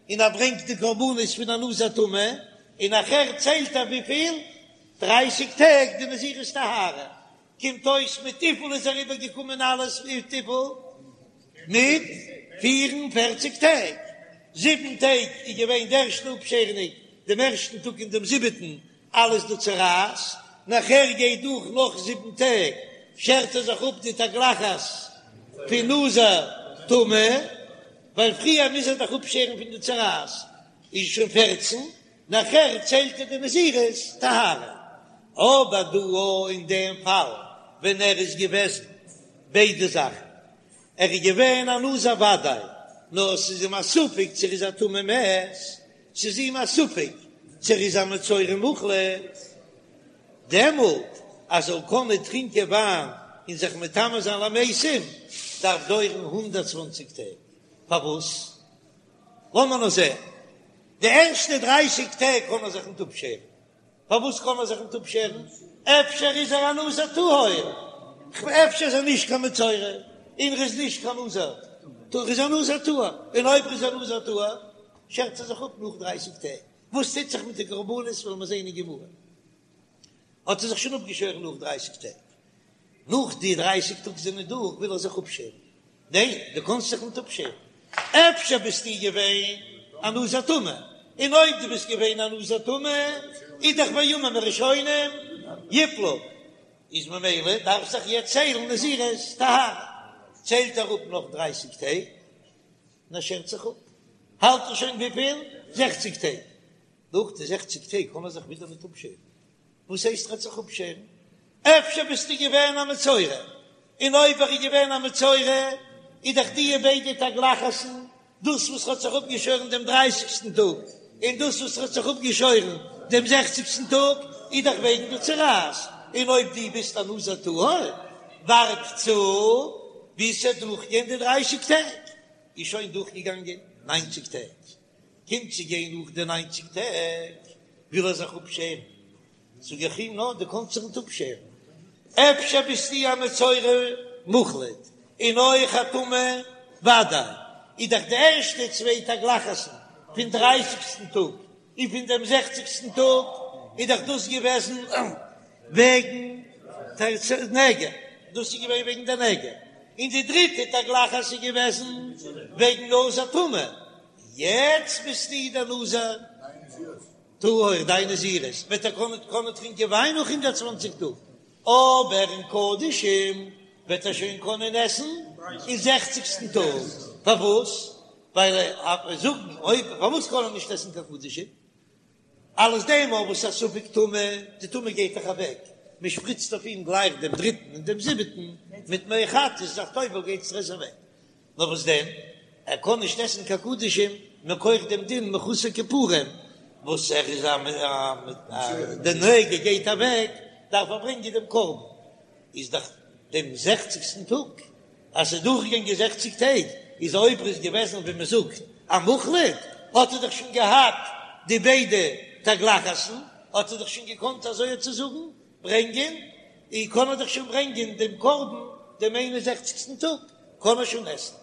און ער ברענגט די קרבנות פון א נזיר טמא, און נאכער ציילט ער וויפיל? דרייסיג טעג די נזירות טהרה, קומט אויס מיט וויפיל איז אריבער געקומען אלעס מיט וויפיל? מיט פיר און פערציג טעג, זיבן טעג איז געווען די ערשטע אפשערונג דעם ערשטן טאג און דעם זיבעטן אלעס די צרעת, נאכער גייט דורך נאך זיבן טעג שערט ער זיך אפ די תגלחת פון נזיר טמא, ווייל פריער מוז ער דאך אפשערן פון די צרעת, איז שוין פערצן, נאכער ציילט ער די נזירות טהרה, אבער דא אין דעם פאל ווען ער איז געוועזן ביידע זאכן, ער איז געווען א נזיר וודאי, נאר עס איז אים א ספק צו ער איז א טמא מת, ס'איז אים א ספק צו ער איז א מצורע מוחלט, דעמאלט אז ער זאל קענען טרינקען וויין און זיך מטמא זיין למתים, דארף דויערן 120 טעג, פארוואס? לאמיר נאר זען, די ערשטע דרייסיג טעג קען ער זיך ניט אפשערן, פארוואס קען ער זיך ניט אפשערן? אפשר איז ער א נזיר טהור, אפשר איז ער נישט קיין מצורע, און ער איז נישט קיין נזיר טהור, ער איז א נזיר טהור, און אויב ער איז א נזיר טהור, שערט ער זיך אפ נאך דרייסיג טעג, וואס טוט זיך מיט די קרבנות וועלן מיר זען אין גמרא, האט ער זיך שוין אפגעשוירן נאך דרייסיג טעג, נאך די דרייסיג טאג זענען דורך וויל ער זיך אפשערן, ניין דו קאנסט זיך ניט אפשערן, אפשר ביסטו געווען א נזיר טמא, און אויב דו ביסט געווען א נזיר טמא איז דאך בימים הראשונים יפלו, איז ממילא דארף זיך יעצט ציילן נזירות טהרה, ציילט ער אפ נאך דרייסיג טעג און ער שערט זיך אפ, האלט ער שוין וויפיל? זעכציג טעג, נאך די זעכציג טעג קען ער זיך ווידער ניט אפשערן, וואס הייסט ער וועט זיך אפשערן? אפשר ביסטו געווען א מצורע, און אויב ער איז געווען א מצורע איז דאך די ביידע תגלחת'ן, דאס וואס האט זיך אפגעשוירן דעם דרייסיגסטן טאג, און דאס וואס האט זיך אפגעשוירן דעם זעכציגסטן טאג, איז דאך וועגן די צרעת, און אויב דו ביסט א נזיר טהור, ווארט צו ביז ס'וועט דורכגיין די דרייסיג טעג, איז שוין דורכגעגאנגען ניינציג טעג, קומט צו גיין נאך די ניינציג טעג, וויל ער זיך אפשערן, זאג איך אים, נא, דו קאנסט זיך ניט אפשערן, אפשר ביסטו א מצורע מוחלט און אויך א טמא ודאי, איז דאך די ערשטע צוויי תגלחת'ן פון דרייסיגסטן טאג און פון דעם זעכציגסטן טאג איז דאך דאס געוועזן וועגן נגע, דאס איז געווען וועגן די נגע, און די דריטע תגלחת איז געוועזן וועגן נזיר טמא, יעצט ביסטו דער נזיר טהור, דיין נזירות וועט ער קענען קענען טרינקען וויין נאך 120 טאג, אבער אין קדשים וועט ער שוין קענען עסן אין זעכציגסטן טאג, פארוואס? ווייל ער זאגן אויב פארוואס קען ער נישט עסן קיין קדשים? אלס דעם אויב וואס א ספק טומאה, די טומאה גייט דאך אוועק, מען שפריצט אויף אים גלייך דעם דריטן און דעם זיבעטן מיט מי חטאת, איז דאך טובל גייט עס אוועק, נאר וואס דען, ער קען נישט עסן קיין קדשים מכח דעם דין מחוסר כיפורים, וואס ער איז א די נגע גייט אוועק, דארף ער ברענגען דעם קרבן, איז דאך דעם זעכציגסטן טאג, אז ס'איז דורכגעגאנגען זעכציג טעג, איז אויב ער איז געוועזן ווי מען זאגט א מוחלט, האט ער דאך שוין געהאט די ביידע תגלחת'ן, האט ער דאך שוין געקאנט אזוי צו זאגן ברענגען, און קען ער דאך שוין ברענגען דעם קרבן דעם איין און זעכציגסטן טאג, קען ער שוין עסן.